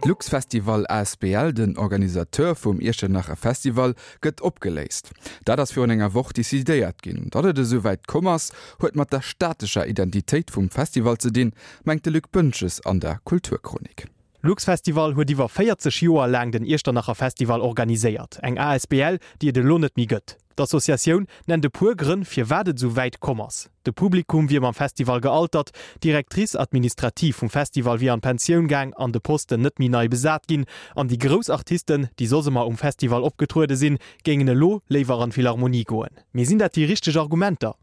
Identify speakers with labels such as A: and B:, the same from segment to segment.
A: D'Luxfestival asbl, den Organisateur vum Iechternacher Festival, gëtt opgeléist. Dat ass virun enger Woch decidéiert ginn. Datt et esou wäit komm ass, huet mat der statescher Identitéit vum Festival ze dinn, mengt de Luc Boentges an der Kulturchronik.
B: Luxfestival huet iwwer 40 Joer laang den Iechternacher Festival organiséiert, eng asbl, déi et elo net méi gëtt. D'Associatioun nennt e puer Grënn, firwat et esou wäit komm ass. De Publikum wier mam Festival gealtert, d'Directrice administrative vum Festival wier an d'Pensioun gaang an de Posten net méi nei besat ginn an déi grouss Artisten, déi soss ëmmer um Festival opgetruede sinn, géingen elo léiwer an d'Philharmonie goen. Mee sinn dat déi richteg Argumenter?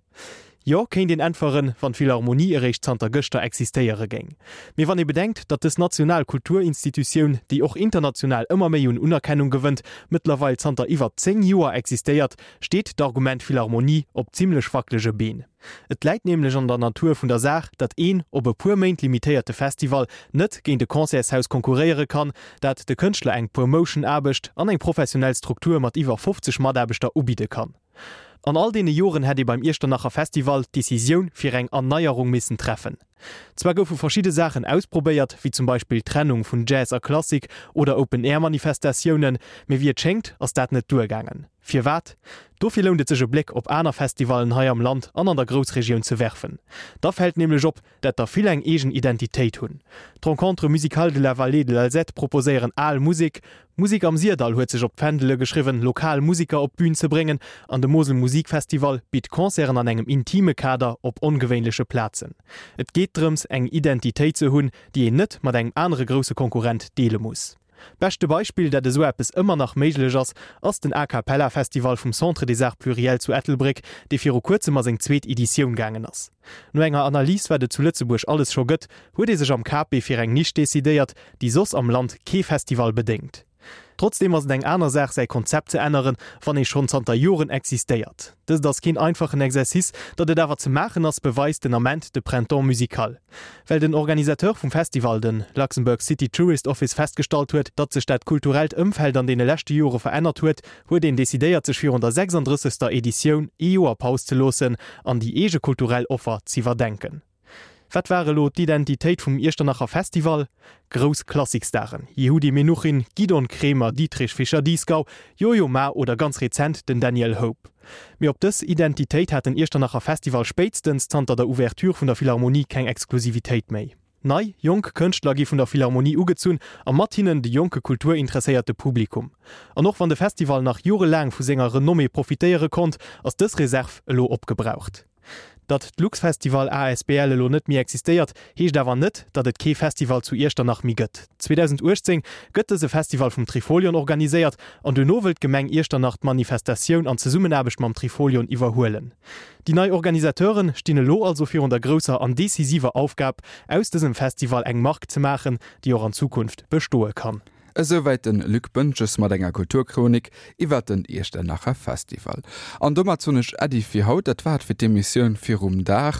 B: Jo, kéint een äntweren, wann d'Philharmonie eréischt zanter gëschter existéiere géing. Mee wann ee bedenkt, datt dës national Kulturinstitutioun, déi och international ëmmer méi un Unerkennung gewënnt, mëttlerweil zanter iwwer 10 Joer existéiert, steet d'Argument Philharmonie op zimmlech wacklege Been. Et läit nämlech an der Natur vun der Saach, datt een op e puer Méint limitéierte Festival net géint e Concertshaus konkurréiere kann, dat de Kënschtler eng Promotion-Aarbecht an eng professionell Struktur mat iwwer 50 Mataarbechter ubidde kann. An all deene Joren hätt ee beim Iechternacher Festival d'Decisioun fir eng Erneierung missen treffen. Zwar goufe verschidde Saachen ausprobéiert, wéi zum Beispill d'Trennung vun Jazz a Klassik oder Open-Air-Manifestatiounen, mee wéi et schéngt, ass dat net duergaangen. Firwat? Dofir lount et sech e Bléck op aner Festivallen hei am Land an an der Groussregioun ze werfen. Da fält nämlech op, dat der vill eng eegen Identitéit hunn. D'Rencontres musicales de la Vallée de l'Alzette proposéieren al Musek, Musik am Syrdall huet sech op d'Fändele geschriwwen, lokal Musiker op d'Bün ze bréngen an de Mosel Musikfestival bitt Concerten an engem intime Kader op ongewéinleche Plazen. Et geet drëms, eng Identitéit ze hunn, déi een net mat engem anere grousse Konkurrent deele muss. Beschte Beispill, dat esou eppes ëmmer nach méiglech ass, ass den A Cappella Festival vum Centre des Arts Pluriels zu Ettelbréck, dee viru kuerzem a seng zweet Editioun gaangen ass. No enger Analys, wat et zu Lëtzebuerg alles scho gëtt, huet ee sech am KP fir eng Nisch decidéiert, déi soss am Land kee Festival bedéngt. Trotzdeem ass et eng aner Saach, säi Konzept ze änneren, wann ee schonn zanter Joren existéiert. Dëst ass keen einfachen Exercice, datt et awer ze maachen ass, beweist den Ament de Printemps Musical. Well den Organisateur vum Festival, de Luxembourg City Tourist Office, festgestallt huet, datt sech dat kulturellt Ëmfeld an deene leschte Jore verännert huet, huet een decidéiert sech virun der 36. Editioun ee Joer Paus ze loossen an déi eege kulturell Offer z'iwwerdenken. Wat war elo d'Identitéit vum Iechternacher Festival? Grouss Klassikstaren, Yehudi Menuhin, Gidon Kremer, Dietrich Fischer-Dieskau, Yo-Yo Ma oder ganz rezent den Daniel Hope. Mee op dës Identitéit hat den Iechternacher Festival spéitstens zanter der Ouverture vun der Philharmonie keng Exklusivitéit méi. Nei, jonk Kënschtler gi vun der Philharmonie ugezunn a mat hinnen de jonke kulturinteresséierte Publikum. An och wann de Festival nach jorelaang vu senger Renommée profitéiere konnt, ass dës Reserv elo opgebraucht. Datt d'Luxfestival asbl elo net méi existéiert, heescht awer net, datt et kee Festival zu Iechternach méi gëtt. 2018 gëtt dëse Festival vum Trifolion organiséiert an duerno wëllt d'Gemeng Iechternach d'Manifestatioun an Zesummenaarbecht mam Trifolion iwwerhuelen. Déi nei Organisateuren stinn elo also virun der grousser an decisiver Aufgab, aus dësem Festival eng Mark ze maachen, déi och an Zukunft bestoe kann.
A: Esouwäit den Luc Boentges mat enger Kulturchronik iwwert den Iechternacher Festival. An domat soen ech Äddi fir haut. Dat war et fir d'Emissioun Virum Dag.